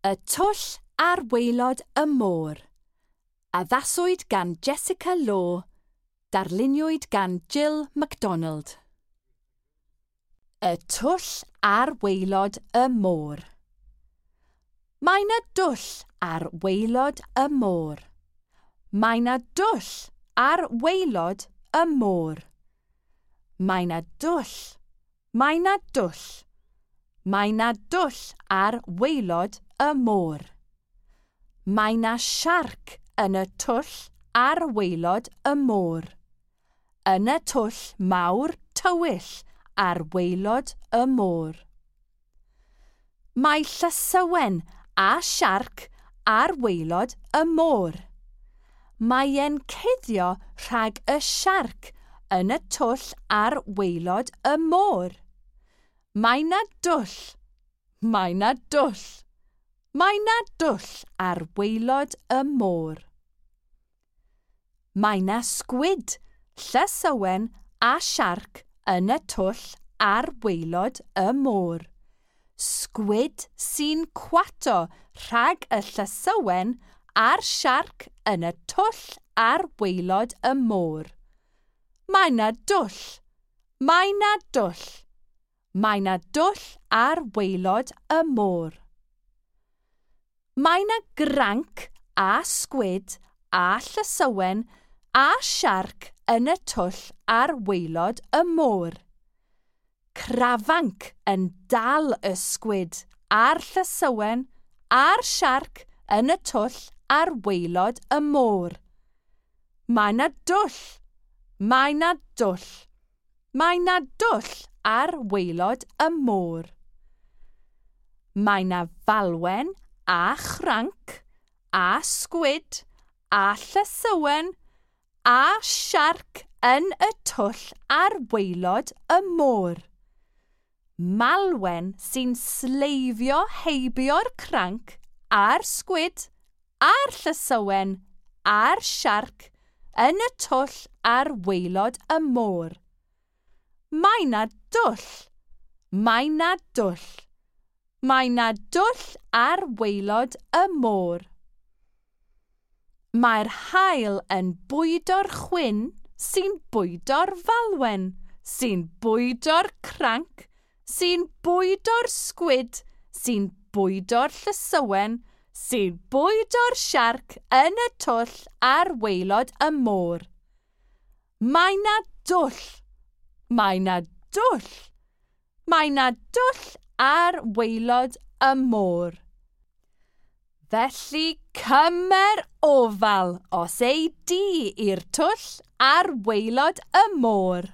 Y twll ar waelod y môr. Addaswyd gan Jessica Law, darluniwyd gan Jill MacDonald. Y twll ar waelod y môr. Mae 'na dwll ar waelod y môr. Mae 'na dwll ar waelod y môr. Mae 'na dwll. Mae 'na dwll. Mae 'na dwll ar waelod y môr. Mae 'na siarc yn y twll ar waelod y môr. Yn y twll mawr tywyll ar waelod y môr. Mae llysywen a siarc ar waelod y môr. Mae e'n cuddio rhag y siarc yn y twll ar waelod y môr. Mae 'na dwll. Mae 'na dwll. Mae 'na dwll ar waelod y môr. Mae 'na sgwid, llysywen a siarc yn y twll ar waelod y môr. Sgwid sy'n cwato rhag y llysywen a'r siarc yn y twll ar waelod y môr. Mae 'na dwll. Mae 'na dwll. Mae 'na dwll ar waelod y môr. Mae 'na granc a sgwid a llysywen a siarc yn y twll ar waelod y môr. Crafanc yn dal y sgwid a'r llysywen a'r siarc yn y twll ar waelod y môr. Mae 'na dwll. Mae 'na dwll. Mae 'na dwll ar waelod y môr. Mae 'na falwen a chranc a sgwid a llysywen a siarc yn y twll ar waelod y môr. Malwen sy'n sleifio heibio'r cranc a'r sgwid a'r llysywen a'r siarc yn y twll ar waelod y môr. Mae 'na dwll. Mae 'na dwll. Mae 'na dwll ar waelod y môr. Mae'r haul yn bwydo'r chwyn sy'n bwydo'r falwen, sy'n bwydo'r cranc, sy'n bwydo'r sgwid, sy'n bwydo'r llysywen, sy'n bwydo'r siarc yn y twll ar waelod y môr. Mae 'na dwll. Mae 'na dwll. Mae 'na dwll ar waelod y môr. Felly cymer ofal os ei di i'r twll ar waelod y môr.